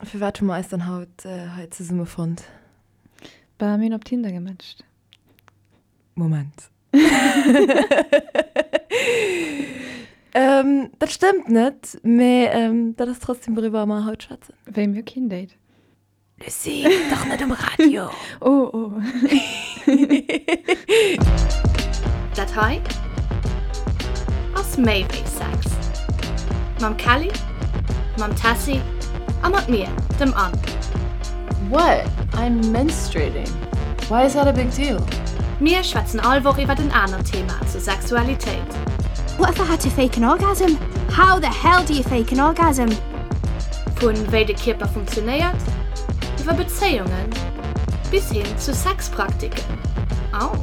Firwat hu mer eis dann haut hei zesumme fonnt? Bah, mir hunn op Tinder gematcht. Moment. Dat stëmmt net, mee dat ass trotzdem wouriwwer mer haut schwätzen. Wéi, mir hu keen Date? Lucie, dach net um Radio! Oh, oh. Dat hei ass méi wéi Sex. Mam Kelly, mam Tessy a mat mir, dem Anne. What? I'm menstruating. Why is that a big deal? Mir schwätzen all Woch iwwert en anert Thema zur Sexualitéit. What if I had to fake an orgasm? How the hell do you fake an orgasm? Vu wéi de Kierper funktionéiert, iwwer Bezéiungen bis hin zu Sexpraktiken. Au!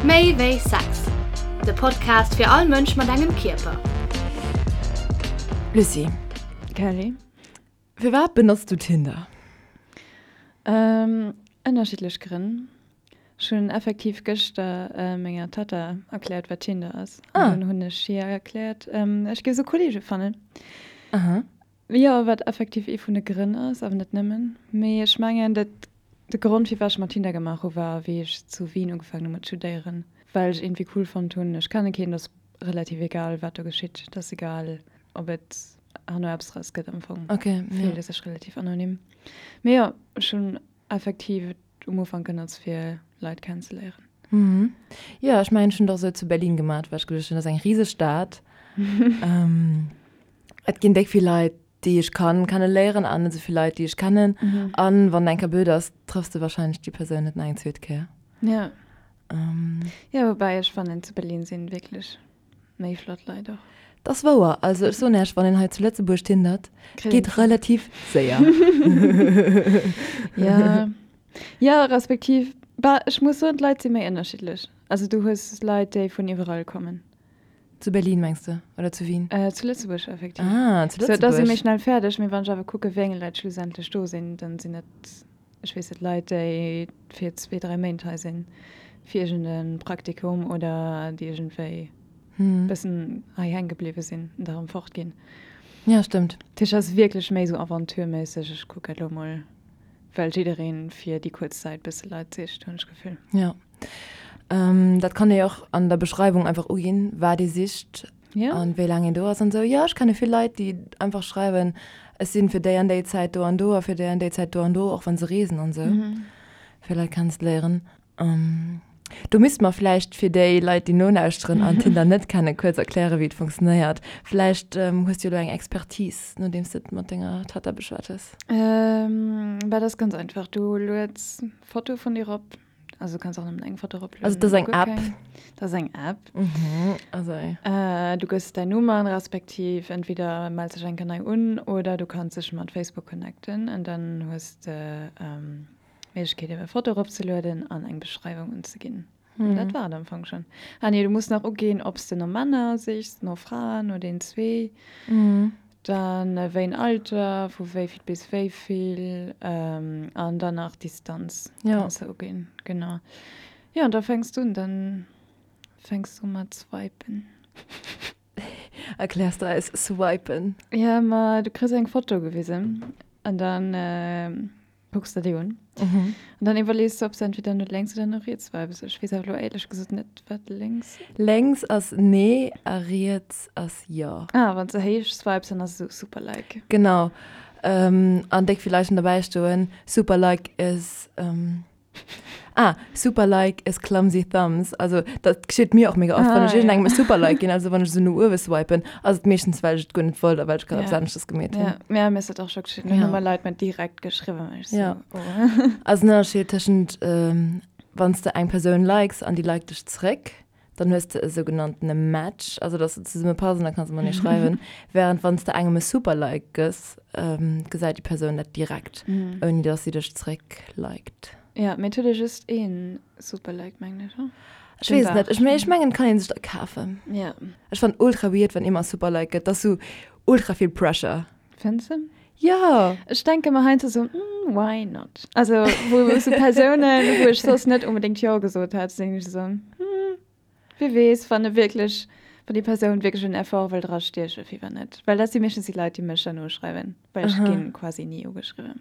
Méi wéi Sex, de Podcast fir all Mënsch mat engem Kierper. Lucie. Kelly. Firwat benotz du Tinder? Ënnerschiddlech Grënn. Ech hunn effektiv gëschter menger Tatta erkläert, wat Tinder ass. An dunn hunn ech hir erkläert, ech géif esou Kolleege fannen. Jo, wat effektiv ee vun de Grënn ass, awer net nëmmen. Mee ech mengen, dat de Grond, firwat ech mer Tinder gemaach hu war, wéi ech zu Wien ugefaangen hu mat studéieren, well ech iergendwéi cool fonnt hunn, ech kenne keen, et ass relativ egal, wat do geschitt. Et ass egal, ob et herno eppes draus gëtt am Fong. Fillt ee sech relativ anonym. Mee jo, ech hunn effektiv et um Ufank genotzt fir Leit kennenzeléieren. Mhm. Jo, ech mengen ech hunn et och esou zu Berlin gemat, well ech geduecht hunn, dat ass eng riseg Stad. Et ginn déck vill Leit, déi ech kann kenneléieren an net esou vill Leit, déi ech kennen. An wann eng Kéier blöd ass, trëffs de wahrscheinlech déi Persoun net nach eng zweet Kéier. Ja. Jo, woubäi ech fannen, zu Berlin sinn wierklech Méi flott Leit och. Dat ass wouer. Also ech soen Iech, wann een hei zu Lëtzebuerg tindert, et geet relativ séier. Ja, ja respektiv, bah, ech muss soen, d'Leit si méi ënnerschiddlech. Also du hues Leit, déi vun iwwerall kommen. Zu Berlin mengs de oder zu Wien? Zu Lëtzebuerg effektiv. Ah, zu Lëtzebuerg. So, da si méi schnell fäerdeg, mee wann ech awer kucke wéi eng Leit schlussendlech do sinn, dann sinn et Ech weess net, Leit, déi fir zwee, dräi Méint hei sinn, fir iergend e Praktikum oder déi iergendwéi e bëssen hei hänke bliwwe sinn an da erëm fortginn. Ja, stëmmt. Dat heescht, et ass wierklech méi esou aventureméisseg, ech kucke elo mol, well jidderee fir déi kuerz Zäit bësse Leit sicht, hunn ech d'Gefill. Jo. Dat kann ee och an der Beschreiwung einfach uginn, wat ee sicht. Ja. An wéi laang een do ass an esou. Jo, ech kenne vill Leit, déi einfach schreiwen, ech sinn fir déi an déi Zäit do an do a fir déi an déi Zäit do an do, och wann se reesen an esou, fir Leit kennenzeléieren. Do misste mer vläicht fir déi Leit, déi nolauschteren an Tinder net kennen, kuerz erklären, wéi et funktionéiert. Vläicht hues du jo elo eng Expertise, nodeems de et mat denger Tatta beschwat hues. Bah, dat ass ganz einfach. Du lueds Foto vun dir erop. Also du kanns och nëmmen eng Foto eroplueden. Also dat ass eng App? Dat ass eng App. Mhm, also. Du gëss däin Numm an, respektiv entweder mells dech eng Kéier nei un oder du kanns dech mat Facebook connecten an dann hues de d'Méiglechkeet ebe Foto eropzelueden an eng Beschreiwung unzeginn. An dat war et am Fong schonn. Ah nee, du muss nach uginn, ob s de no Männer sichs, no Fraen, no den zwee. Dann wéi en Alter, vu wéi vill bis wéi vill an dann nach Distanz kanns de uginn. Genau. Jo, an da fänks du un, dann fänks du mat swipen. Erkläers de eis swipen? Jo, ma du kriss eng Foto gewisen an dann Kucks der déi un. Mhm. An dann iwwerlees du, ob s de entweder no lénks oder no riets swipes. Ech weess awer elo éierlech gesot net, wat lénks. Lénks ass nee a riets ass jo. Ah, wann s de héich swipes, dann ass et esou super like. Genau. An déck vill Leit hunn derbäi stoen, super like is. Ah, super like is clumsy thumbs. Also dat geschitt mir och mega oft, wann ech iergendengem e super like ginn, also wann ech esou no uewe swipen, ass et meeschtens well ech et guer net wollt a well ech grad eppes aneschters gemeet hunn. Ja, ja, mir ass dat och scho geschitt. Mir hu mer Leit mer direkt geschriwwen, ech sou, oh. Also den Ënnerscheed tëschent wann s de eng Persoun likes an déi liked dech zeréck, Dann hues de e sougenanntene Match, also dass se zesumme passen, da kanns de matenee schreiwen. Während wann s de engem e Super-Like gëss, gesäit déi Persoun dat direkt, ouni dass si dech zeréck liked. Ja, mee et huet ee just een Super-Like, mengen ech, oder? Ech weess et net. Ech ech mengen, et kann ee sech der kafen. Ja. Ech fannen ultra weird, wann ee mer e Super-Like gëtt. Dat ass sou ultra vill Pressure. Fënns de? Jo! Ech denke mer heiansdo sou, hm, why not? Also wou sou Persounen, wou ech soss net onbedéngt Jo gesot hätt, sinn ech sou, hm, wie weess, wann e wierklech, Wann déi Persoun wierklech en Effort wëll dra stiechen, firwat net? Well dat si meeschtens déi Leit, déi mech dann uschreiwen, well ech ginn quasi ni ugeschriwwen.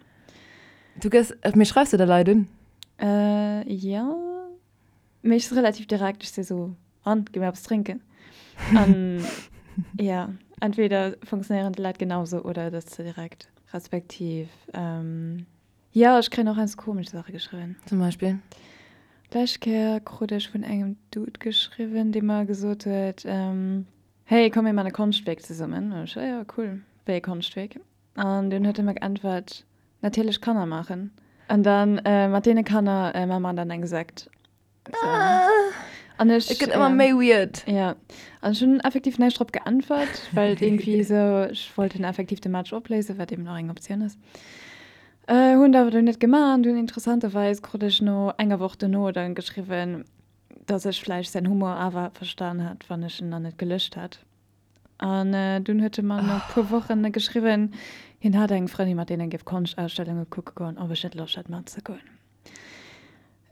Du gëss, mee schreifs de da Leit un? Jo, mee ech si relativ direkt, ech si sou, an, gi mir eppes drénken? An jo, entweder funktionéieren déi Leit genausou oder et ass ze direkt, respektiv Jo, ech kréien och heiansdo komesch Saache geschriwwen. Zum Beispill? D'lescht Kéier krut ech vun engem Dude geschriwwen, dee mer gesot huet, Hey, komm mir man e Konschtwierk zesummen. An ech, Jo, cool, wéi e Konschtwierk? An dunn huet e mer geäntwert, Natierlech Kanner maachen. An dann mat deene Kanner maache mer dann eng Sekt. An ech, Et gëtt ëmmer méi weird. Ja, an ech hunn effektiv näischt drop geäntwert, well et iergendwéi esou, ech wollt dann effektiv de Match opléisen, wat eben och eng Optioun ass. Hunn et awer dunn net gemaach an dunn interessanterweis krut ech no enger Woch dono dann geschriwwen, dass ech vläicht säin Humor awer verstan hätt, wann ech en dann net gelöscht hätt. An dunn huet e mer no e puer Wochen geschriwwen, hien hätt eng Frëndin, mat deenen e géif Konschtausstellunge kucke goen, ob ech net Loscht hätt matzegoen.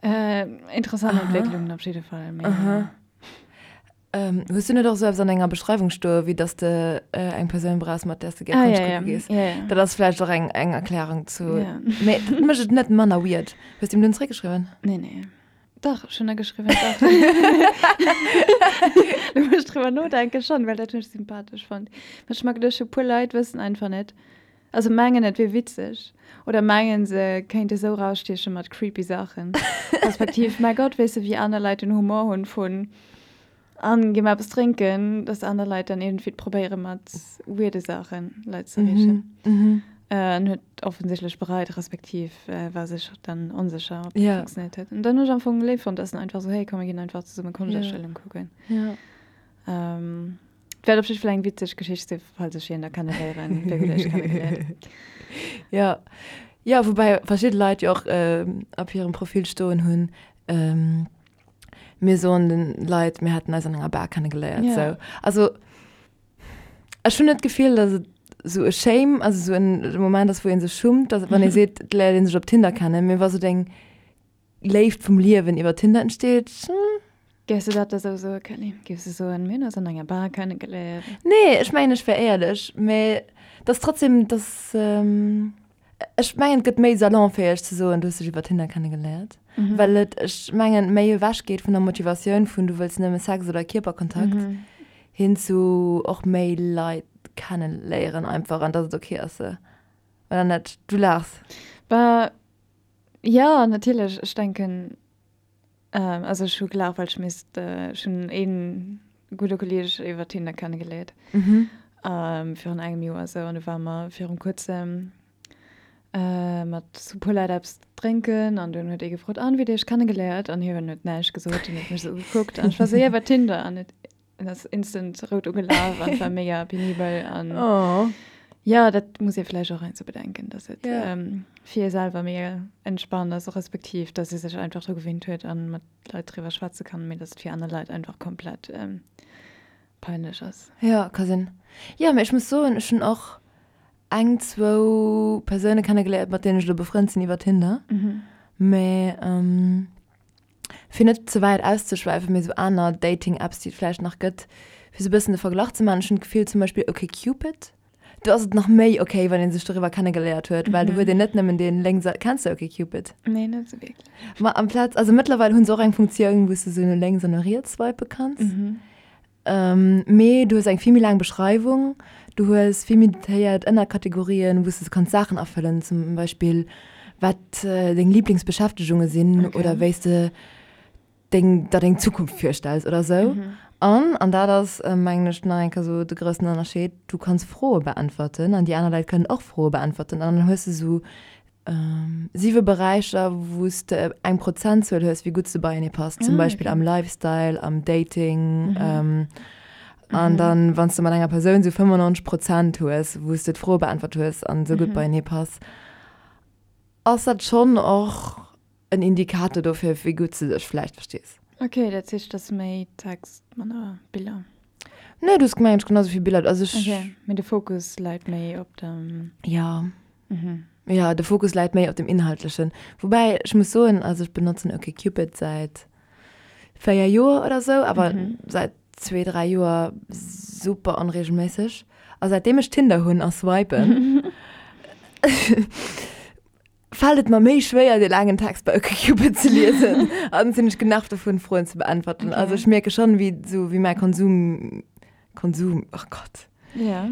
Äh, interessant Entwécklungen op jidde Fall. Mee, Aha. Ähm, hues du net och sou eppes an denger Beschreiwung stoe wéi dass de äh, eng Persoun brauchs, mat där s de gär Ah, Konscht ja, ja. kucke gees? Ja, ja. Dat ass vläicht och eng, eng Erklärung zu. Ja. Mee dat mécht et net manner weird. Hues du him dunn zeréckgeschriwwen? Nee, nee. Dach, ech hunn der geschriwwen, dach. Lo wou ech driwwer nodenken, schonn, well dat hunn ech sympathesch fonnt. Mä ech hu mer geduecht, e puer Leit wëssen einfach net, Also mengen et wier witzeg oder mengen se kéinte sou rausstieche mat creepy Saachen. Respektiv, mäi Gott, weess de wéi aner Leit den Humor hunn vun an gi mer eppes drénken, dass aner Leit dann iergendwéi probéiere mat weirde Saachen Leit ze erreechen. En huet offensichtlech bereit, respektiv war sech dann onsécher ob dat funktionéiert huet. An dann hunn ech am Fong léif fonnt, dass en einfach sou, hey komm mir ginn einfach zesumme Konschtausstellung kucken. Et wäert op jidde Fall eng witzeg Geschicht sinn, falls ech hien da kenneléieren. Wéi hutt Dir iech kennegeléiert? Jo, jo, woubäi verschidde Leit jo och op hirem Profil stoen hunn, mir soen de Leit, mir hätten eis an enger Bar kennegeléiert. Ja. Sou, also ech hunn net d'Gefill, datt et sou e Shame, also sou en Moment ass, wou ee sech schummt, datt wann ee seet, et léiert ee sech op Tinder kennen, mee wa sou deng Léift vum Liewen iwwer Tinder entsteet. Géifs du dat da sou soen, Kelly? Géifs du soen, mir hunn eis an enger Bar kennegeléiert? Nee, ech mengen, ech wär éierlech, mä et ass trotzdem, et ass, ech mengen, et gëtt méi salonfäeg ze soen, du hues dech iwwer Tinder kennegeléiert, well et, ech mengen, méi ewech geet vun der Motivatioun vun du wëlls nëmme Sex oder Kierperkontakt hin zu och méi Leit kenneléieren einfach an dass et ok ass se, oder net? Du laachs. Bah, Jo, natierlech. Ech denken, also ech hu gelaacht, well ech misst, ech hunn ee gudde Kolleeg iwwer Tinder kennegeléiert virun engem Joer esou an du ware mer virum kuerzem mat e puer Leit eppes drénken an dunn huet ee gefrot, an wéi hutt Dir iech kennegeléiert? An hien huet näischt gesot, hien huet mech esou ugekuckt an ech war esou, jo iwwer Tinder an huet En ass instant rout ugelaf an war mega penibel an oh. ja dat muss ee vläicht och heiansdo bedenken, dass et Ja. ähm, fir ee selwer mega entspannt ass, respektiv dass ee sech einfach dru gewinnt huet an mat Leit driwwer schwätze kann, mee dass et fir aner Leit einfach komplett ähm, peinlech ass. Ja, ka sinn. Jo, mee ech muss soen, ech hunn och eng, zwou Persoune kennegeléiert, mat deenen ech elo befrënnt sinn iwwer Tinder. Mee ähm, fir net ze wäit auszeschwäifen, mee sou aner Dating-Apps, déi et vläicht nach gëtt, fir sou e bëssen de Verglach ze maachen, ech hunn d'Gefill zum Beispill OkCupid, do ass et nach méi ok, wann ee sech doriwwer kennegeléiert huet, well do huet een net nëmmen dee lénks a, kenns de OkCupid? Nee, net sou wierklech. Ma amplaz, also mëttlerweil hu se och eng Funktioun, wou s de sou no lénks an no riets swipe kanns. Mee du hues eng vill méi laang Beschreiwung, du hues vill méi detailléiert Ënnerkategorien, wou s de kanns Saachen afëllen, zum Beispill wat deng Liblingsbeschäftegunge sinn oder wéi s de deng der deng Zukunft virstells oder sou. An, an dat ass mengen ech nach eng Kéier sou de groussen Ënnerscheed, du kanns Froe beäntwerten an déi aner Leit kënnen och Froe beäntwerten an dann hues de sou Siwe Beräicher, wou s de eng Prozentzuel hues, wéi gutt s de beienee passt, zum Beispill am Lifestyle, am Dating. An dann, wann s de mat enger Persoun esou 95 Prozent hues, wou s de d'Froe beäntwert hues an esou gutt beienee pass, ass dat schonn och en Indikator dofir, wéi gutt s de dech vläicht verstees. Ok, dat heescht, et ass méi Text, manner Biller. Nee, du hues gemengt, ech genau esou vill Biller. Also ech. Ok, mee de Fokus läit méi op dem. Jo. Jo, de Fokus läit méi op dem Inhaltlechen. Woubäi ech muss soen, also ech benotzen OkCupid säit 4 Joer oder sou, awer säit. 2, 3 Joer super onregelméisseg. A säitdeem ech Tinder hunn a swipen, fält et mer méi schwéier, dee laangen Text bei OkCupid ze liesen. An sinn ech genervt dovun, Froen ze beäntwerten. Okay. Also ech mierke schonn, wéi sou wéi mäi Konsum, Konsum, oh Gott, Ja.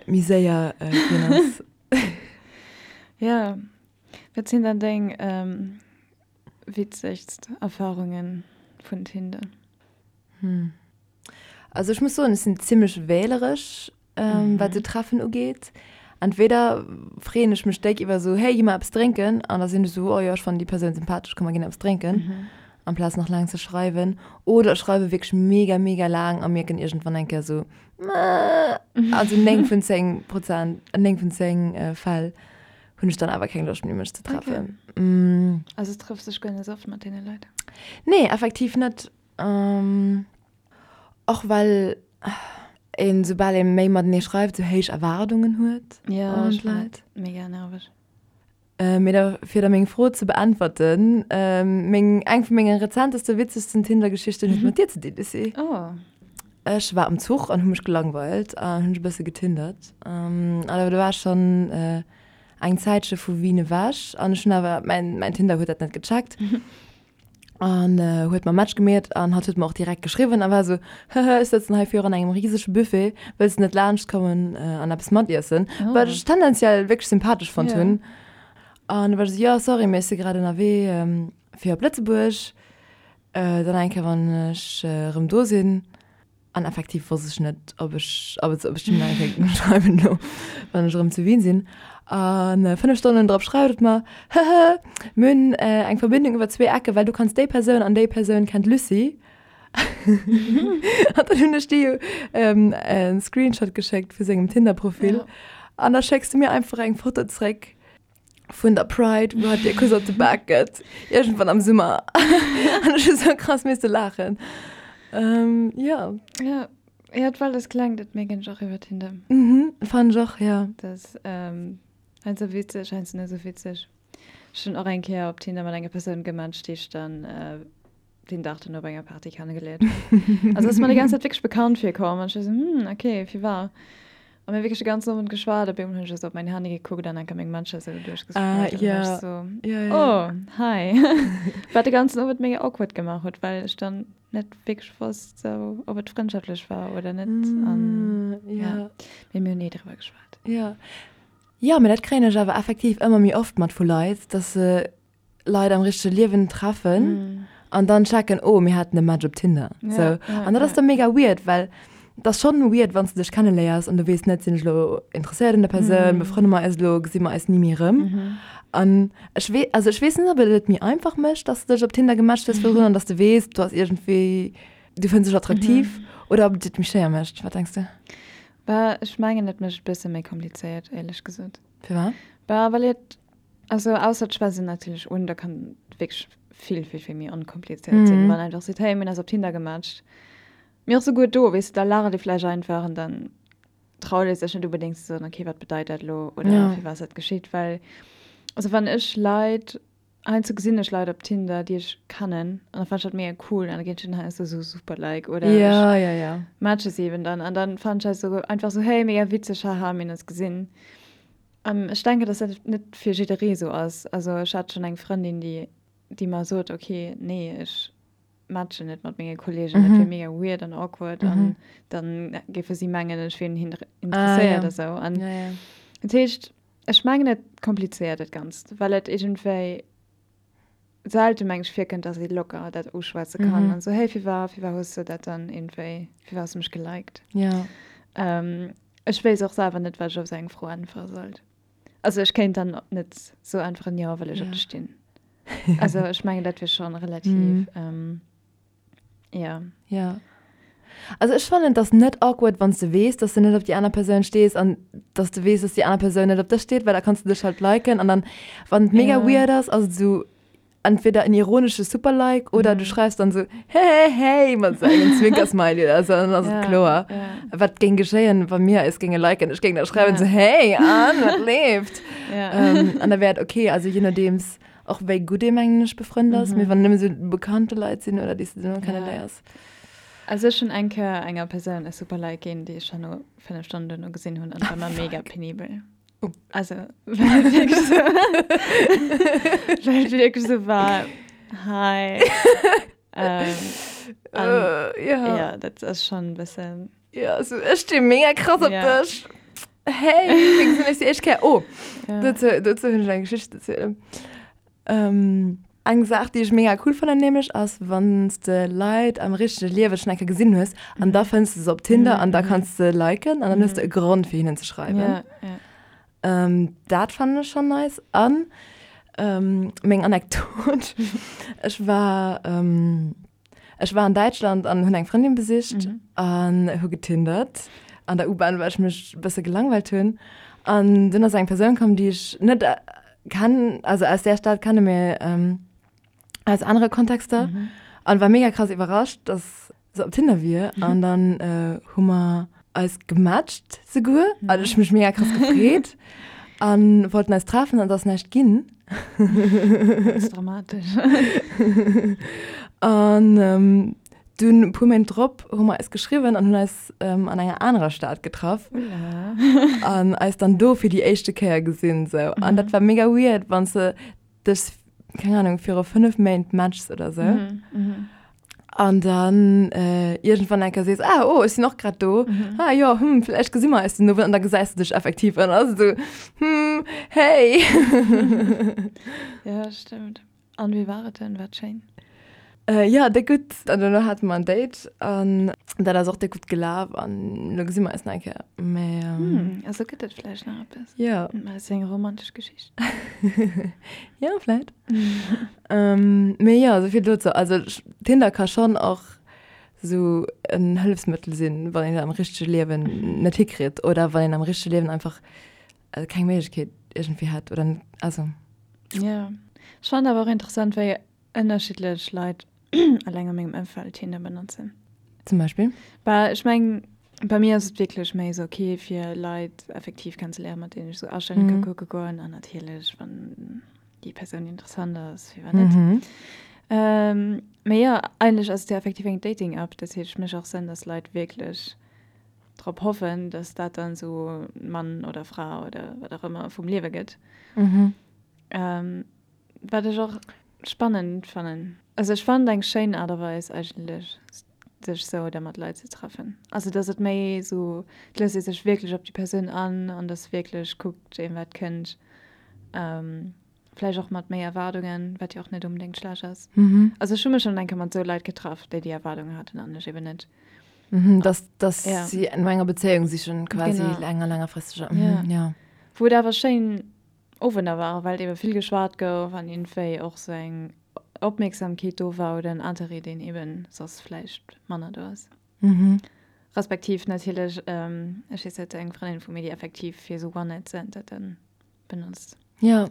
méi séier äh, ginn ass. Ja. Wat sinn dann deng ähm, witzegst Erfarungen vun Tinder? Hm. Also ech muss soen, ech sinn zimmlech wähleresch, ähm, mhm. wat sou Treffen ugeet. Entweder freeën ech mech déck iwwer sou, hey, gi mer eppes drénken, an da sinn ech sou, oh jo, ech fannen déi Persoun sympathesch, komm mer ginn eppes drénken, mhm. amplaz nach laang ze schreiwen. Oder ech schreiwe wierklech mega, mega laang a mierken iergendwann eng Kéier sou, also 9 vun 10 Prozent, 9 vun 10 äh, Fäll hunn ech dann awer keng Loscht méi mech ze treffen. Okay. Mm. Also trëffs dech guer net oft mat deene Leit? Nee, effektiv net. Ähm, och well een, soubal ee méi matenee schreift, sou héich Erwaardungen huet ja, un d'Leit. Mega nerveg. Äh, mee da, fir da meng Fro ze beäntwerten, ähm, meng, eng vu menge rezenteste, witzegsten Tinder-Geschichten huet mat dir ze dinn, Lucie. Oh. Ech war am Zuch an hu mech gelangweilt an hunn e bësse getindert. Ähm, awer do war schonn äh, eng Zäitche vu Wien ewech an ech hunn awer, mäin, mäin Tinder huet dat net gecheckt. An huet mer Match gemeet an hatt huet mer och direkt geschriwwen a war esou, Hehe, ech sëtzen hei virun engem risege Buffet, wëlls de net laanscht kommen an eppes matiessen? Wat ech tendenziell wierklech sympathesch fonnt hunn. An du war ech esou, Jo, sorry, mee ech si grad ënnerwee fir op Lëtzebuerg, dann eng Kéier wann ech erëm do sinn. An effektiv wosst ech net, ob ech, ob et, ob ech dem nach eng Kéier schreiwen elo, wann ech erëm zu Wien sinn. An 5 Stonnen drop schreift et mer, Hehe, mir hunn eng Verbindung iwwer zwee Ecke, well du kanns déi Persoun an déi Persoun kennt d'Lucie. An dann hunn ech dir jo e Screenshot geschéckt vu sengem Tinder-Profil. An da schécks du mir einfach eng Foto zréck. vun der Pride, wou hatt dir e Kuss op de Bak gëtt, iergendwann am Summer. An ech hu sou krass misste laachen. Ähm, ja. Ja, ja, well das klengt et mega och iwwer Tinder. Mhm, fand ech och, ja. Das, ähm, heiansdo witzeg, heiansdo net sou witzeg. Ech hunn och eng Kéier op Tinder mat enger Persoun gematcht, déi ech dann, äh, den Dag duerno op enger Party kennegeléiert hunn. Also ass mer déi ganz Zäit wierklech bekannt virkomm an ech war sou, hm, okay, firwat? A mir hu wierklech de ganzen Owend geschwat, op eemol hunn ech esou op mäin Handy gekuckt an enker meng Matcher esou duerchgescrollt an da war ech sou, oh, hi. Wat de ganzen Owend mega awkward gemaach huet, well ech dann net wierklech wosst, sou, ob et frëndschaftlech war oder net an ja, mee mir hunn ni driwwer geschwat. Jo, jo, mee dat kréien ech awer effektiv ëmmer méi oft mat vu Leit, dass se Leit am richtege Liewen treffen mm. an dann checken, oh, mir haten e Match op Tinder. Ja, so. ja, an dat ass ja. dann mega weird, well das schon weird, wann du dech kennenléiers an du weess net, sinn ech lo interesséiert un der Persoun, mm. befrënne mer eis lo, gesi mer eis ni méi erëm. Mm. An ech wee, also ech weess net, ob et et méi einfach mécht, dass du dech op Tinder gematcht hues virdrun an dass du weess, du ass iergendwéi, du fënns dech attraktiv, mm. oder ob et et méi schwéier mécht. Wat denks du? Bah, ech mengen, et mécht et bësse méi komplizéiert, éierlech gesot. Firwat? Bah, well et Also ausser d'Schwätz sinn natierlech un, da kann et wierklech vill, vill, vill méi onkomplizéiert sinn, wann einfach seet, hey, mir hunn eis op Tinder gematcht. Mee och souguer do, weess de, da laacht ee vläicht einfach an dann traut ee sech net unbedéngt ze soen, okay, wat bedeit dat elo oder ja. firwat ass dat geschitt, well also wann ech Leit, heiansdo gesinn ech Leit op Tinder, déi ech kennen an da fannen ech dat mega cool an da ginn ech hinnen heiansdo sou super like oder ja, ja, ja. matche se eben dann an dann fannen ech dat sou einfach sou, hey, mega witzeg, haha, mir hunn eis gesinn. Ech denken, dass dat net fir jidderee sou ass. Also ech hat schonn eng Frëndin, déi, déi mer sot, okay, nee, ech matchen net mat menge Kolleegen, dat wier mega weird an awkward an dann géife si mengen, ech wier un hinnen interesséiert a sou. An dat heescht, ech mengen, et komplizéiert dat Ganzt, well et iergendwéi selte meng ech virkënnt, dass ee locker dat uschwätze kann an sou, hey, firwat, firwat hues de dat dann iergendwéi, firwat hues de mech geliked? Ja. Ech wéisst och selwer net, wat ech op sou eng Fro äntwere sollt. Also ech kéint dann net sou äntweren, jo, well ech op dech stinn. Also ech mengen, dat wier schonn relativ, ja. Ja. Also ech fannen, et ass net awkward, wann s de weess, dass de net op déi aner Persoun stees an dass de weess, dass déi aner Persoun net op dech steet, well da kanns de dech halt liken an dann, wann et mega weird ass, ass et esou entweder en ironesche Super-Like oder du schreifs dann esou hey, hey mat esou engem Zwinker-Smiley oder esou an dann ass et kloer. Wat géing geschéien, wa mir eis géinge liken? Ech géing da schreiwen esou hey, an, wat leeft? An da wär et okay, also je nodeems och wéi gutt ee mengen ech befrënnt ass, mee wann nëmme sou bekannte Leit sinn oder déi s de nëmme kenneléiers. Also ech hunn eng Kéier enger Persoun e super Like ginn, déi ech herno 5 Stonnen duerno gesinn hunn an war mer mega penibel. Oh. Also well et wierklech sou well et wierklech sou war, hi. Ähm, an, Äh, ja. ja, dat ass schonn e bëssen. Ja, so, ech sti mega krass op Ja. dech. Hey, wéi gesinn ech déi éischt Kéier? Oh, Ja. dozou, dozou hunn ech eng Geschicht ze zielen. Ähm, eng Saach, déi ech mega cool fannen nämlech, ass, wann s de Leit am richtege Liewe schonn eng Kéier gesinn hues an da fënns de se op Tinder an da kanns de liken an dann hues de e Grond, fir hinnen ze schreiwen. Ja, ja. Ähm, dat fannen ech schonn nice. An ähm, meng Anekdot, ech war, ähm, ech war an Däitschland an hunn eng Frëndin besicht an hu getindert an der U-Bahn, well ech mech e bësse gelangweilt hunn. An dunn ass eng Persoun komm, déi ech net kennen, also aus där Stad kenne, mee aus anere Kontexter. An war mega krass iwwerrascht, dass se op Tinder wier. An dann hu mer eis gematcht souguer. An ech hu mech mega krass gefreet. An wollten eis treffen an et ass näischt ginn. Dat ass dramatesch. An dunn e puer Méint drop hu mer eis geschriwwen an hunn eis an enger anerer Stad getraff. An eis dann do fir déi éischte Kéier gesinn sou. An dat war mega weird, wann s de dech, keng Ahnung, viru 5 Méint matchs oder sou. An dann äh, iergendwann eng Kéier sees, ah, oh, ech sinn och grad do. Mhm. Ah jo, hm, vläicht gesi mer eis den Owend. An da gesäis du dech effektiv an ass esou, hm, hey. Ja, stëmmt. An wéi war et denn? War et schéin? Äh, ja, déck gutt. An duerno hate mer en Date an dat ass och déck gutt gelaf an elo gesi mer eis nach eng Kéier. Mä, ähm, Hm, also gëtt et vläicht nach eppes. ja. Mä ass jo eng romantesch Geschicht. Ja, vläicht. Ähm, mee jo, esou vill dozou. Also Tinder ka schonn och esou en Hëllefsmëttel sinn, wann een et am richtege Liewen net hikritt oder wann een am richtege Liewen einfach keng Méiglechkeet iergendwéi hätt oder net, also. Jo, ech fannen awer och interessant, wéi ënnerschiddlech Leit eleng a mengem Ëmfeld Tinder benotzen. Zum Beispill? Bah, ech mengen, bei mir ass et wierklech méi esou ok, fir Leit effektiv kennenzeléieren, mat deenen ech esou Astellen ka kucke goen an natierlech, wann déi Persoun interessant ass, firwat net. Mhm. Ähm, mee jo, eigentlech ass et jo effektiv eng Dating-App, dat heescht, et mécht och Sënn, dass Leit wierklech drop hoffen, dass dat dann esou Mann oder Fra oder wat och ëmmer vum Liewe gëtt. Mhm. Ähm, wat ech och spannend fannen. Also ech fannen et eng schéin Aart a Weis eigentlech, sech sou da mat Leit ze treffen. Also dass et méi sou, et léisst ee sech wierklech op déi Persoun an an dass wierklech kuckt een wat kënnt. Vläicht och mat méi Erwaardungen, wat jo och net onbedéngt schlecht ass. Also ech hu mech schonn eng Kéier mat sou Leit getraff, déi déi Erwaardungen haten an ech eben net. Dass dass si no enger Bezéiung sichen quasi, enger längerfristeger. Jo. Wou et awer schéin Owender waren, well ebe vill geschwat gouf an iergendwéi och sou eng Opmierksamkeet do war oder en Interêt, deen eben soss vläicht manner do ass. Respektiv natierlech, ech weess net, eng Frëndin vu mir, déi effektiv fir sou One-Night-Stand dat dann benotzt. Jo,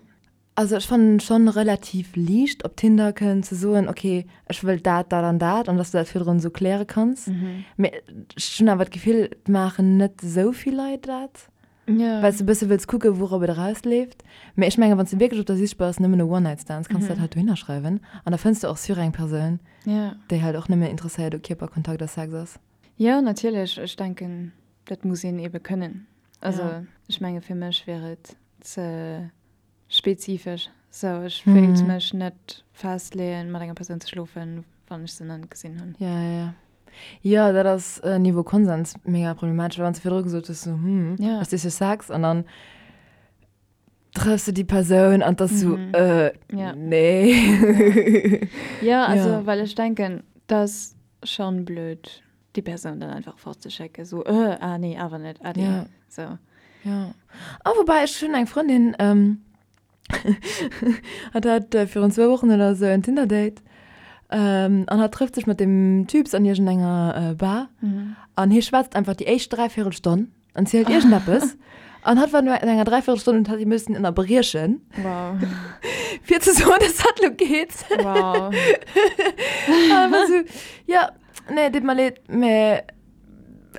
also ech fannen et schonn relativ liicht op Tinder kënnen ze soen, ok, ech wëll dat, dat an dat, an dass du dat virdrun esou kläre kanns. Mee ech hunn awer d'Gefill, et maachen net esou vill Leit dat. Ja. Well s de e bësse wëlls kucken, wourop et erausleeft. Mee ech mengen, wann s de wierklech op der Sich bass, nëmmen no One-Night-Stands, kanns de dat halt dohinner schreiwen. An da fënns de och sûr eng Persoun, Ja. déi halt och nëmmen interesséiert u Kierperkontakt a Sex ass. Jo, natierlech. Ech denken, dat muss een ebe kënnen. Also, Ja. ech menge fir mech wier et ze spezifesch. Sou, ech wéilt mech net festleeën, mat enger Persoun ze schlofen, wann ech se nach net gesinn hunn. Ja, ja, ja. Jo, dat ass Niveau Konsens mega problematesch, well wann s de virdru gesot hues, sou, hm, Ja. ech si fir Sex an dann trëffs de déi Persoun an 't ass sou, äh, Ja. nee. Ja, also, Ja. well ech denken, 't ass schonn blöd, déi Persoun dann einfach fortzeschécken, sou, äh, ah nee, awer net, ade. Ja. Sou. Ja. Ah, woubäi, ech hunn eng Frëndin, ähm, Hatt hat virun zwou Wochen oder sou en Tinder-Date an hatt trëfft sech mat deem Typs an iergendenger Bar an hie schwätzt einfach déi éischt Dräivierelstonn an zielt iergendeppes an hatt war no enger Dräivierelstonn und hat hie müssen ënnerbriechen, Wow. fir ze soen, dass hatt lo geet. Wow. An war sou, ja, nee, deet mer leed, mä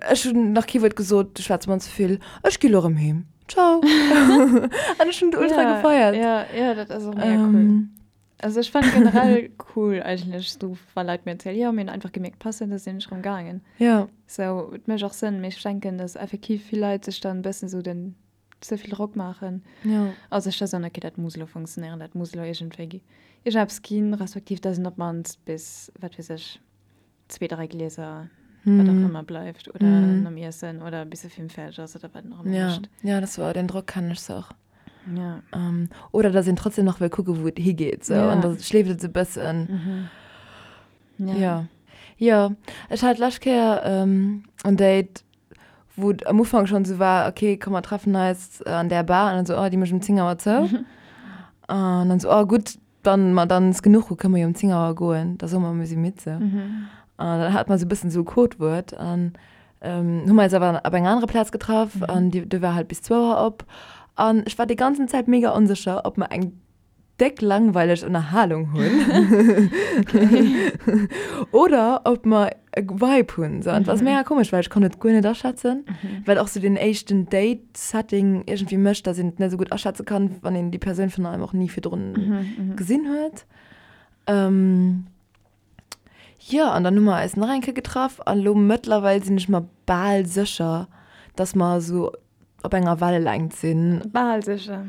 ech hunn nach kee Wuert gesot, du schwätz mer ze vill, ech gi lo erëm heem. Ciao. An ech hunn et ultra ja, gefeiert. Ja, ja, dat ass och mega cool. Also ech fannen generell cool eigentlech sou wa Leit mir erzielen, jo mir hunn einfach gemierkt passen, da sinn ech rëm gaangen. Jo. Sou et mécht och Sënn, mee ech denken, dass effektiv vill Leit sech dann e bëssen sou den ze vill Drock maachen Jo. a sech da soen, okay dat muss elo funktionéieren, dat muss elo iergendwéi iergendeppes ginn, respektiv dass een op d'mannst bis, wat weess ech, zwee, dräi Glieser, wat och ëmmer bleift oder nom Iessen oder bis de Film fäerdeg ass oder wat een och ëmmer Ja, mécht. ja, dat war den Drock kennen ech se och. Ja. Ähm, oder dass een trotzdem nach wëll kucken, wou et higeet, sou. Ja. An da schleeft et sou e bëssen. Ja. Ja. Jo, ech hat d'lescht Kéier ähm, en Date, wou et am Ufank schonn sou war, okay, komm mer treffen eis an där Bar. An dann sou, oh, déi mécht um 10 Auer zou. An dann sou, oh gutt, Wann mer dann es genuch hu, kënne mer jo um 10 Auer goen, da soe mer, mir si midd sou. An dann hat mer sou e bëssen sou e Codewuert an hu mer eis awer op enger anerer Plaz getraff an déi do war halt bis zwou Auer op. An ech war déi ganzen Zäit mega onsécher, ob mer eng déck langweileg Ënnerhalung hunn oder ob mer e Vibe hunn sou. An et war mega komesch, well ech konnt et guer net aschätzen, well och sou deen éischten Date, Setting iergendwéi mécht, dass een et net esou gutt aschätze kann, wann een déi Persoun virun allem och ni virdrun gesinn huet. Jo, an dann hu mer eis nach eng Kéier getraff an elo mëttlerweil sinn ech mer bal sécher, dass mer esou op enger Wellelängt sinn. Bal sécher?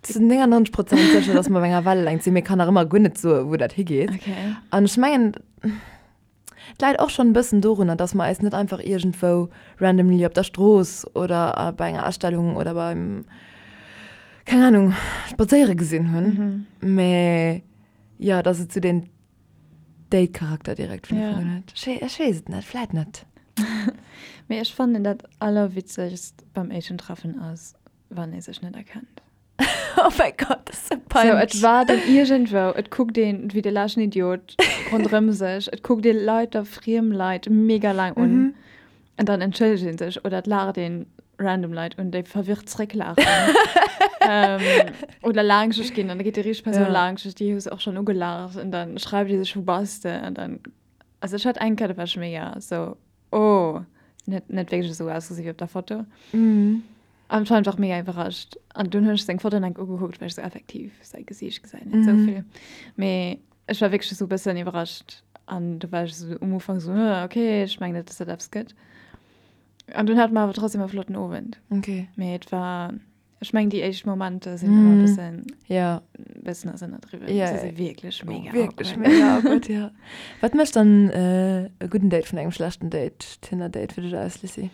Zu 99 Prozent sécher, dass mer op enger Wellelängt sinn, mee kann nach ëmmer guer net soen, wou dat higeet. An ech mengen, Et läit och schonn e bëssen dorunner, dass mer eis net einfach iergendwou randomly op der Strooss oder bei enger Ausstellung oder beim, keng Ahnung, Spadséiere gesinn hunn, mä jo, dass et sou deen Date-Charakter direkt vun Ufank un huet. Ech weess et net, vläit net. Mee ech fannen dat allerwitzegst beim éischten Treffen ass, wann ee sech net erkennt. Oh mäi Gott, dat ass sou peinlech. So, et war dann iergendwou, et kuckt een wéi de leschten Idiot ronderëm sech, et kuckt ee Leit, friem Leit mega laang un mhm. an dann entschëllegt een sech oder et laacht een random Leit un, déi verwirrt zrécklaachen. ähm, oder laangscheg ginn an da geet déi richteg Persoun ja. laangscheg, déi hues och schon ugelaacht an dann schreift ee sech, wou bass de? An dann, also ech hat eng Kéier, da war ech mega so, oh, net, net wierklech esou ausgesinn wéi op der Foto. Mhm. An ech war einfach mega iwwerrascht. An dunn hunn ech seng Foto enk ugekuckt, well ech sou effektiv säi Gesiicht gesäit net sou vill. Mee ech war wierklech sou e bëssen iwwerrascht. An du war ech sou um Ufank sou, hm, okay, ech mengen net, dass dat eppes gëtt. An dunn hate mer awer trotzdem e flotten Owend. Okay. Mee et war, ech mengen déi éischt Momenter sinn ëmmer e bëssen, Ja. bëssen ass ënnerdriwwen. Ja, Se si wierklech mega Wierklech awkward. mega awkward, ja. Wat mécht dann e gudden Date vun engem schlechten Date, Tinder-Date fir dech aus, Lissy?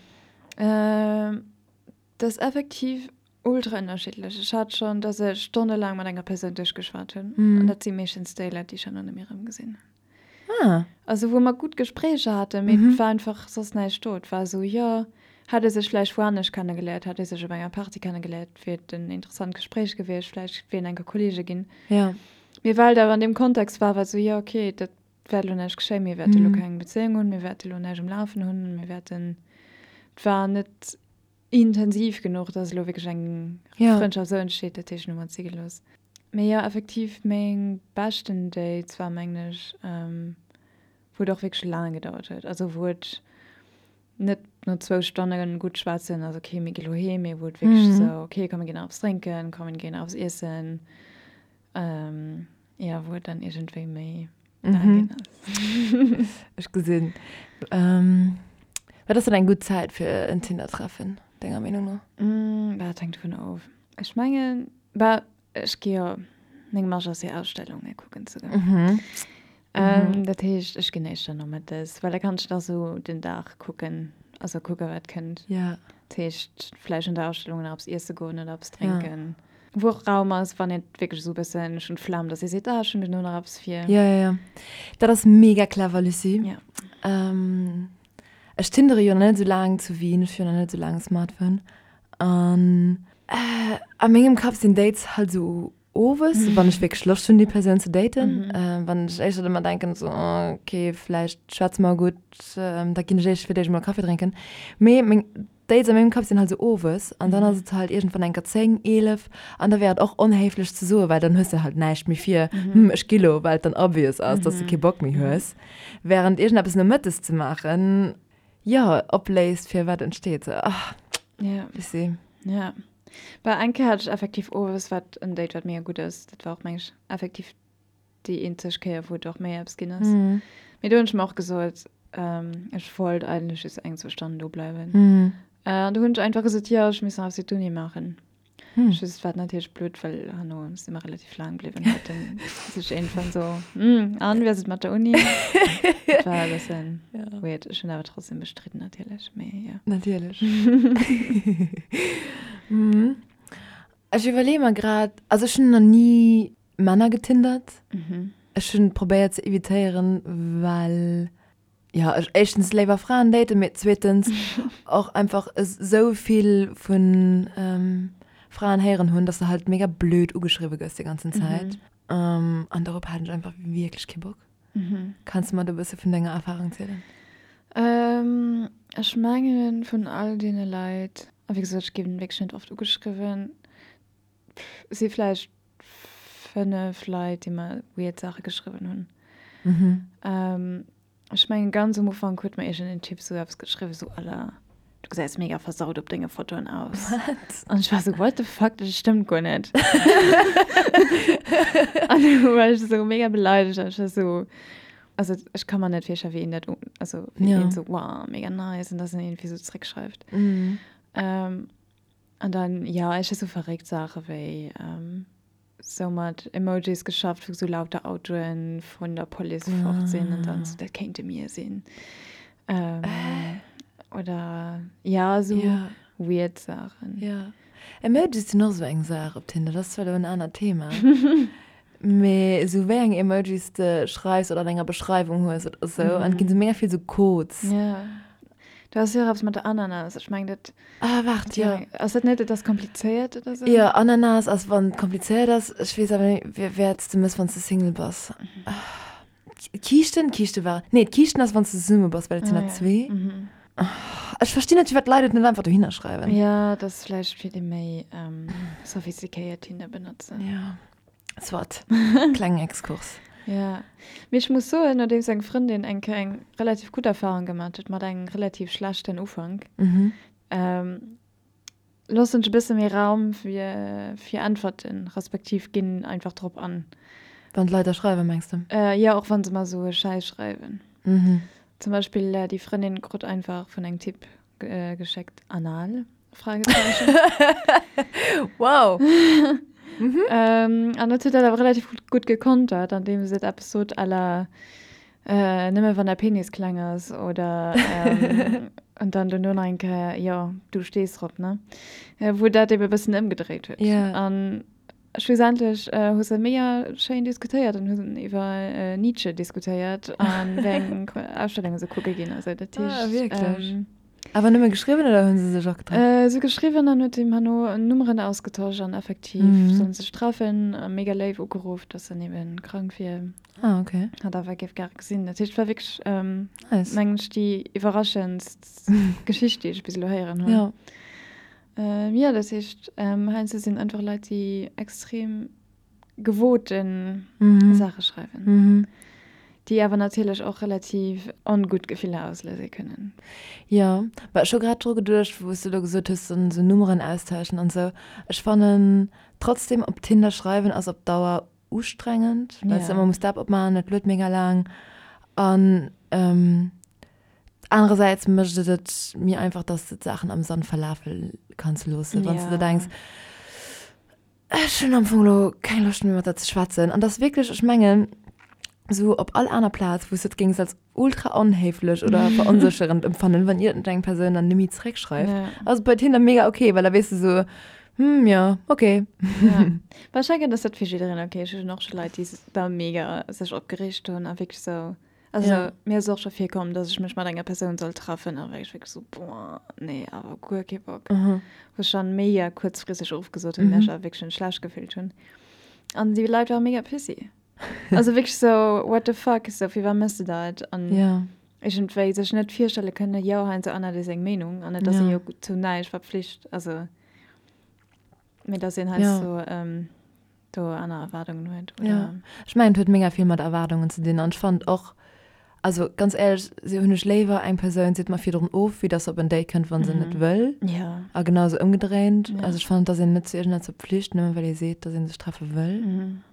Dat ass effektiv ultra ënnerschiddlech. Ech hat schonn, dass ech stonnelaang mat enger Persoun duerchgeschwat hunn. An dat si meeschtens déi Leit, déi ech herno net méi erëmgesinn hunn. Ah. Also wou mer gutt Gespréicher haten, mee et war einfach soss näischt do. Et war esou, jo, hätt ee sech vläicht wou anescht kennegeléiert, hätt ee sech op enger Party kennegeléiert, wier et en interessant Gespréich gewiescht, vläicht wier een enker Kolleege ginn. Ja. Mee well et awer an deem Kontext war, war et esou, jo, okay, dat wäert elo näischt geschéien, mir wäerte elo keng Bezéiung hunn, mir wäerte elo näischt um Lafen hunn, mir wäerten, et war net intensiv genuch, dass elo wierklech eng Frëndschaft esou entsteet, dat heescht, hu mer et si gelooss. Mee jo, effektiv meng beschten Dates war mengen ech, wou et och wierklech laang gedauert huet, also wou et net no zwou Stonne gutt schwätzen ass, okay, mir gi lo heem, mee wou et wierklech esou, okay, komm mir ginn nach eppes drénken, komm mir ginn nach eppes iessen. Ja, wou et dann iergendwéi méi laang ginn ass. Ech gesinn. Wat ass dann eng gutt Zäit fir en Tinder-Treffen, denger Meenung no? Bah, dat hänkt dovun of. Ech mengen, bah, ech gi jo, meng Marge ass jo Ausstellunge kucken ze goen. Dat heescht, ech ginn éischter nomëttes, well da kann ech da sou den Dag kucken, also kucke wat kënnt. Dat heescht, vläicht an der Ausstellung nach eppes iesse goen oder eppes drénken. Wou och Raum ass, wann een wierklech esou e bëssen, ech hunn d'Flemm, dass ee seet, ah, ech hunn duerno nach eppes vir. Jo, jo, jo. Dat ass mega clever, Lucie. Ja. Ech tindere jo nach net esou laang zu Wien, ech hu jo nach net esou laang e Smartphone. An a mengem Kapp sinn Dates halt esou owes, wann ech wierklech Loscht hunn, déi Persoun ze daten. Wann ech éischter ëmmer denken, esou, oh, okay, vläicht schwätze mer gutt, da ginn ech éischt fir d'éischt emol Kaffi drénken. Mee meng Dates a mengem Kapp sinn halt esou owes an dann ass et halt iergendwann enker 10, 11 an da wär et och onhéiflech ze soen, well dann hues de halt näischt méi vir, hm, ech gi lo, well et dann obvious ass, dass de kee Bock méi hues. Während iergendeppes nomëttes ze maachen, jo, opléist fir wat entsteet. Sou, ah, Ja. Lucie. Ja. Bah, eng Kéier hat ech effektiv owes wat en Date wat mega gutt ass. Dat war och meng ech effektiv déi eenzeg Kéier wou et och méi eppes ginn ass. Mee do hunn ech mer och gesot, ech wollt eigentlech just eng, zwou Stonnen do bleiwen. An do hunn ech einfach gesot, jo ech muss nach eppes fir d'Uni maachen. Just wat natierlech blöd, well herno si mer relativ laang bliwwen, huet en sech iergendwann so, Hm, an wéi ass et mat der Uni? Dat war e bëssen weird. Ech hunn awer trotzdem bestridden natierlech, mee jo. Natierlech. Ech iwwerleeë mer grad, also ech hunn nach ni Männer getindert. Ech hunn probéiert ze evitéieren, well jo ech éischtens léiwer Fraen daten, mee zweetens och einfach esou vill vu Fraen héieren hunn, dass de halt mega blöd ugeschriwwe gëss déi ganzen Zäit. An dorop hat ech einfach wierklech kee Bock. Kanns de mer do e bësse vun denger Erfarung zielen? Ech mengen vun all deene Leit, a wéi gesot ech ginn wierklech net oft ugeschriwwen, si vläicht 5 Leit, déi mer weird Saache geschriwwen hunn. Mhm. Ech mengen ganz um Ufank huet mer iergendeen Typ sou eppes geschriwwen, sou à la, du gesäis mega versaut op denge Fotoen aus. Wat? An ech war sou, what the fuck, dat stëmmt guer net. An du war ech sou mega beleidegt an ech war sou, also ech ka mer net virstellen, wéi een dat, also wéi een sou, wow, mega nice, an dass en iergendwéi sou zréckschreift. Mhm. An dann, jo, ech hu sou verréckt Saache wéi sou mat Emojis geschafft, wou sou lauter Autoen vun der Police fort sinn an dann sou, dat kéinte mir sinn. Oder jo, sou weird Saachen. Jo, Emojis sinn och sou eng Saach op Tinder, dat ass zwar elo en anert Thema, mee sou wéi eng Emojis de schreifs oder an enger Beschreiwung hues oder sou, an et ginn sou mega vill sou Codes. Jo, do ass jo och eppes mat der Ananas, ech mengen dat. Ah, waart, jo. Ass dat net, et ass komplizéiert oder sou? Jo, Ananas ass, wann et komplizéiert ass. Ech weess awer net, wäerts de mëss, wann s de Single bass. D'Kiischten? D'Kiischte war, nee, d'Kiischten ass, wann s de zesumme bass, well et sinn der zwee. Ech verstinn net, firwat d'Leit et net einfach dohinner schreiwen. Jo, dat ass vläicht fir déi méi sophistiquéiert Tinder benotzen. Jo. Soit. Klengen Exkurs. Ja. Mee ech muss soen, nodeems eng Frëndin eng Kéier eng relativ gutt Erfahrung gemat huet mat engem relativ schlechten Ufank, loossen ech e bësse méi Raum fir, fir Äntwerten, respektiv ginn einfach drop an. Wann d'Leit der schreiwen, mengs de? Jo, och wa se mer esou e Schäiss schreiwen. Zum Beispill déi Frëndin krut einfach vun engem Typ geschéckt, Anal? Fragezeichen. Wow! Mhm. Ähm, an dat huet dat awer relativ gutt, gutt gekontert, andeem se eppes sot à la äh, nëmme wann der Penis kleng ass oder ähm, an dann dono nach eng Kéier, jo, du stees drop, ne? Äh, wou dat ebe bëssen ëmgedréit huet. Ja. An schlussendlech äh, hu se mega schéin diskutéiert an hu iwwer äh, Nietzsche diskutéiert an wéi eng Ausstellunge se kucke ginn. Also dat Ah, heescht, wierklech? ähm, Awer nëmme geschriwwen oder hunn se sech och getraff? Äh, se geschriwwen an huet him herno Nummeren ausgetosch an effektiv mhm. sollen sech treffen. Mega léif ugeruff, dass en eben krank wier. Ah, okay. Hat awer géif gare gesinn. Dat heescht, war wierklech, ähm, nice. mengen ech, déi iwwerraschendst Geschicht, déi ech bis elo héieren hunn. Ja. Ähm, ja, dat heescht, ähm, heiansdo sinn einfach Leit, déi extrem gewoten Saache schreiwen, déi awer natierlech och relativ ongutt Gefiller auslöse kënnen. Jo, mä ech hu grad dru geduecht, wou s de elo gesot hues, esou Nummeren austauschen an esou. Ech fannen trotzdem, op Tinder schreiwen ass op Dauer ustrengend, well s de ëmmer muss d'App opmaachen, et luet mega laang an anerersäits mécht et et méi einfach, dass de d'Saachen am Sand verlafe kanns loossen, wann s de der denks, Ech hunn am Fong elo keng Loscht méi mat der ze schwätzen. An dass wierklech, ech mengen, esou op all aner Plaz, wou s de et géings als ultra onhéiflech oder veronsécherend empfannen, wann iergendeng Persoun dann net méi zeréckschreift, Ja. ass et bei Tinder mega ok, well da weess de esou, hm, jo, ok. Ja. Bah, ech denken, dass dat fir jiddereen ok ass. Ech hunn och scho Leit, déi da mega sech opgereegt hunn a wierklech esou Also Ja. mir ass och scho virkomm, dass ech mech mat enger Persoun soll treffen a war ech wierklech sou, boah, nee, awer guer kee Bock. Mhm. Wou ech dann mega kuerzfristeg ofgesot hunn, well ech awer wierklech schon schlecht gefillt hunn. An déi Leit ware mega pissy. Also wierklech sou, what the fuck, sou firwat méchs de dat? An Ja. iergendwéi sech net virstelle kënnen, jo, heiansdo ännert ee seng Meenung an et ass ee Ja. jo zu näischt verpflicht, also mee dass een Ja. heiansdo do aner Erwaardungen huet, Ja. oder? Ech mengen, et huet mega vill mat Erwaardungen ze dinn an ech fannen och. Also ganz éierlech, si hunn ech léiwer eng Persoun seet mer virdrun of, wéi dass se op en Date kënnt, wa se net wëll. Ja. A genau esou ëmgedréint. Ja. Also ech fannen, et ass een net zu iergendeppes verpflicht, nëmme well ee seet, dass ee sech treffe wëll.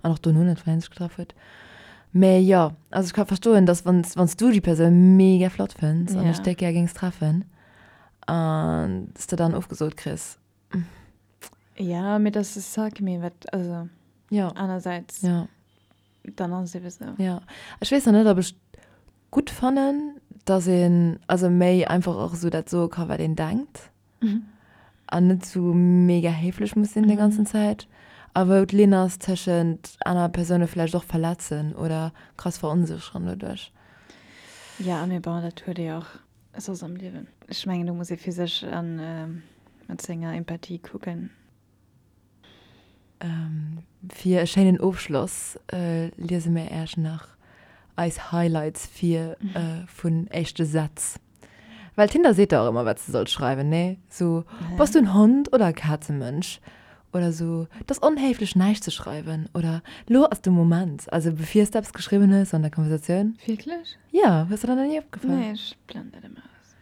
An och dono net, wann ee sech getraff huet. Mä jo, also ech ka verstoen, dass wann s du déi Persoun mega flott fënns an dech déck gär géings treffen an s de dann ofgesot kriss. Ja, mee dat ass Sack, mee wat, also ja. anersäits. Ja. Dann ass et ebe sou. Ja, ech weess nach net, ob ech gutt fannen, dass een also méi einfach och esou dat soe ka wat een denkt an net esou mega héiflech muss sinn déi ganzen Zäit a wou d'Linn ass tëschent aner Persoune vläicht och verletzen oder krass veronsécheren doduerch. Ja, mee bon, dat huet ee och soss am Liewen. Ech mengen, do muss ee fir sech a mat senger Empathie kucken. Fir e schéinen Ofschloss liese mir Äech nach eis Highlights vir vun éischte Sätz. Well Tinder seet der och ëmmer wat s de solls schreiwen, nee? Sou, Bass du en Hond oder e Kazemënsch? Oder sou, Et ass onhéiflech näischt ze schreiwen. Oder Lo ass de Moment. Also bevir s de eppes geschriwwen hues an der Konversatioun. Wierklech? Jo, hues der dat nach ni opgefall? Nee, ech blend dat ëmmer aus.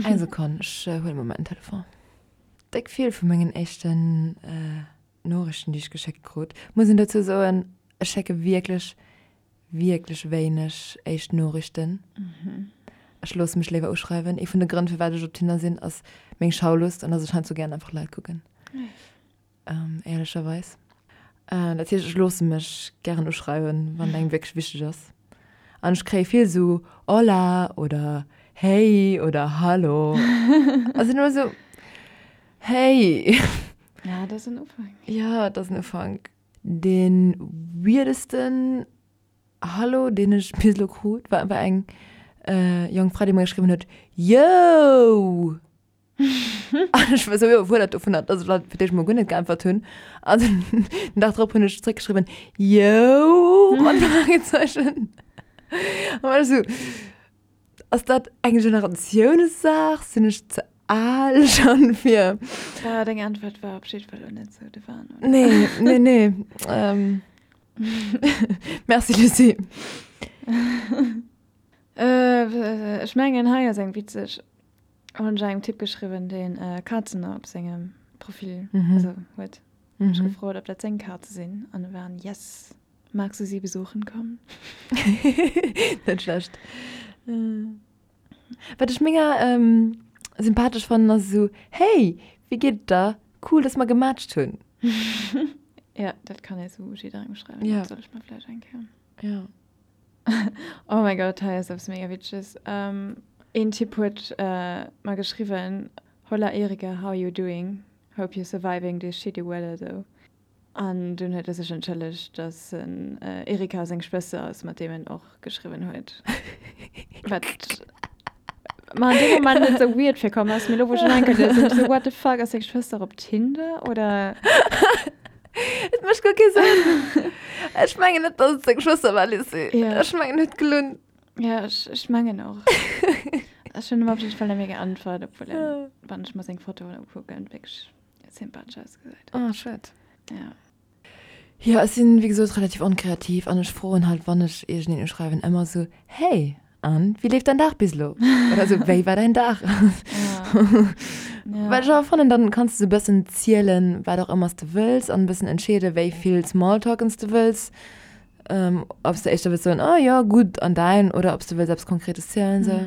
Eng Sekonn, ech huele mol mäin Telefon. Déck vill vu mengen éischten Noriichten, déi ech geschéckt krut. Muss een dozou soen, ech schécke wierklech, wierklech wéineg éischt Noriichten. Ech loosse mech léiwer uschreiwen. Ee vun de Grënn, firwat ech op Tinder sinn, ass meng Schaulust an dass ech heiansdo gären einfach Leit kucken. Éierlecherweis. Dat heescht, ech loosse mech gären uschreiwen, wann et engem wierklech wichteg ass. An ech kréie vill esou Hola oder Hey oder Hallo. A sinn ëmmer esou, Hey! Ja, dat ass en Ufank. Ja, dat ass en Ufank. Dee weirdesten Hallo, deen ech bis elo krut, war einfach eng jonk Fra, déi mer geschriwwen huet, Yo! An ech war sou iwwerfuerdert dovunner, dass ech halt fir d'éischt mol guer net geäntwert hunn. An den Dag drop hunn ech zréckgeschriwwen, Yo! Mat Fragezeichen. An war ech sou, Ass dat eng Generatiounssaach? Sinn ech ze al schonn fir. Bah, deng Äntwert war op jidde Fall elo net sou de Wahn, oder? Nee, nee, nee. Merci, Lucie. Ech mengen, hei ass eng witzeg. Hunn ech engem Typ geschriwwen, deen Kazen op sengem Profil also huet. Hunn ech gefrot, ob dat seng Kaze sinn an e war en Yes. Magst du sie besuchen kommen? Net schlecht. Wat ech mega sympathesch fannen ass esou, Hey, wéi geet et der? Cool, dass mer gematcht hunn. Ja, dat kann ee sou jidderengem schreiwen. Dat soll ech mer vläicht eng Kéier. Ja. Oh mein Gott, hei ass eppes mega Witzeges. Een Typ huet mer geschriwwen, Hola Erika, how you doing? Hope you're surviving this shitty weather though. An dunn huet e sech entschëllegt, dass en Erika seng Schwëster ass, mat deem en och geschriwwen huet. Wat mer an deem Moment net sou weird virkomm ass, mee lo wou ech en enkel liesen, sinn ech sou, what the fuck, ass seng Schwëster op Tinder oder? Et mécht guer kee Sënn. Ech mengen net, dass et seng Schwëster war, Lizzie. Ja. Ech mengen, en huet gelunn. Ja, ech, ech mengen och. Ech hunn em op jidde Fall net méi geäntwert, obwuel en, wann ech mer seng Fotoen ukucken, wierklech sympathesch ausgesäit. Ah, schued. Ja. Jo, ech sinn, wéi gesot, relativ onkreativ an ech froen halt, wann ech iergendeen uschreiwen, ëmmer esou, Hey, an, wéi leeft däin Dag bis elo? Oder esou, Wéi war däin Dag? Ja. Well ech awer fannen, dann kanns de esou e bëssen zielen, wat och ëmmer s de wëlls an e bëssen entscheeden, wéi vill Smalltalken s de wëlls. Ob s de éischter wëlls soen, Oh jo, gutt, an däin? Oder ob s de wëlls eppes Konkretes zielen, esou.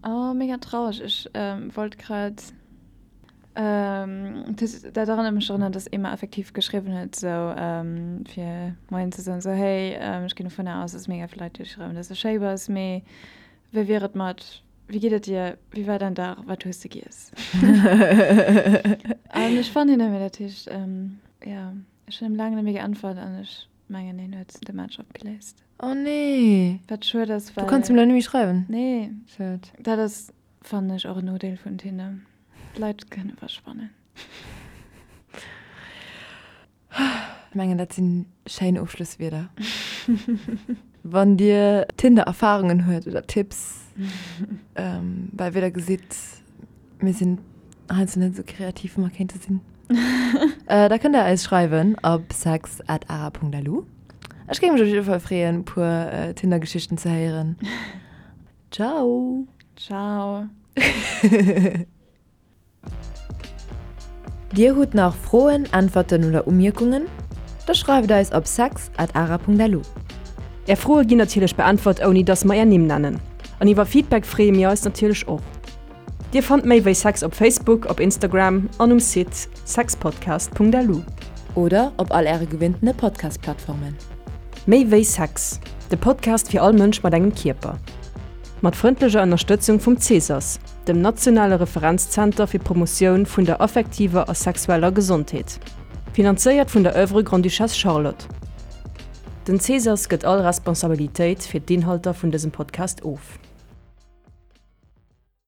Oh, mega traureg. Ech wollt grad. Dat erënnert mech drun, dass ee mer effektiv geschriwwen huet, sou fir Moien ze soen, sou hey, ech ginn dovunner aus, dass mega vill Leit dir schreiwen, dass de schéi bass, mee wéi wier et mat, wéi geet et dir, wéi war däin Dag, wat hues de giess? An ech fannen hien net méi, dat heescht, jo, ech hunn him laang net méi geäntwert an ech mengen, hien huet de Match opgeléist. Oh nee! Wat schued ass, well. Du kanns him elo net méi schreiwen? Nee. Schued. Dat ass, fannen ech, och en Nodeel vun Tinder. D'Leit kënne verschwannen. Ech mengen dat sinn schéin Ofschlosswierder. Wann dir Tinder Erfahrungen huet oder Tipps, well wéi der gesitt, mir sinn heiansdo net esou kreativ wéi mer kéinte sinn, da kënnt der eis schreiwen op sex at ara.lu. Ech géing mech op jidde Fall freeën, e puer Tinder-Geschichten ze héieren. Ciao! Ciao! Dir hutt nach Froen, Äntwerten oder Umierkungen? Da schreift eis op sex at ara.lu. Är Froe ginn natierlech beäntwert ouni dass mer är Nimm nennen. An iwwer Feedback freeë mir eis natierlech och. Dir fannt méi wéi Sex op Facebook, op Instagram an um Site sexpodcast.lu. Oder op all äre gewinntene Podcast-Plattformen. Méi wéi Sex, de Podcast fir all Mënsch mat engem Kierper. Mat frëndlecher Ënnerstëtzung vum Cesas, dem nationale Referenzzenter fir d'Promotioun vun der affektiver a sexueller Gesondheet. Finanzéiert vun der Oeuvre Grande-Duchesse Charlotte. Den Cesas gëtt all Responsabilitéit fir d'Inhalter vun dësem Podcast of.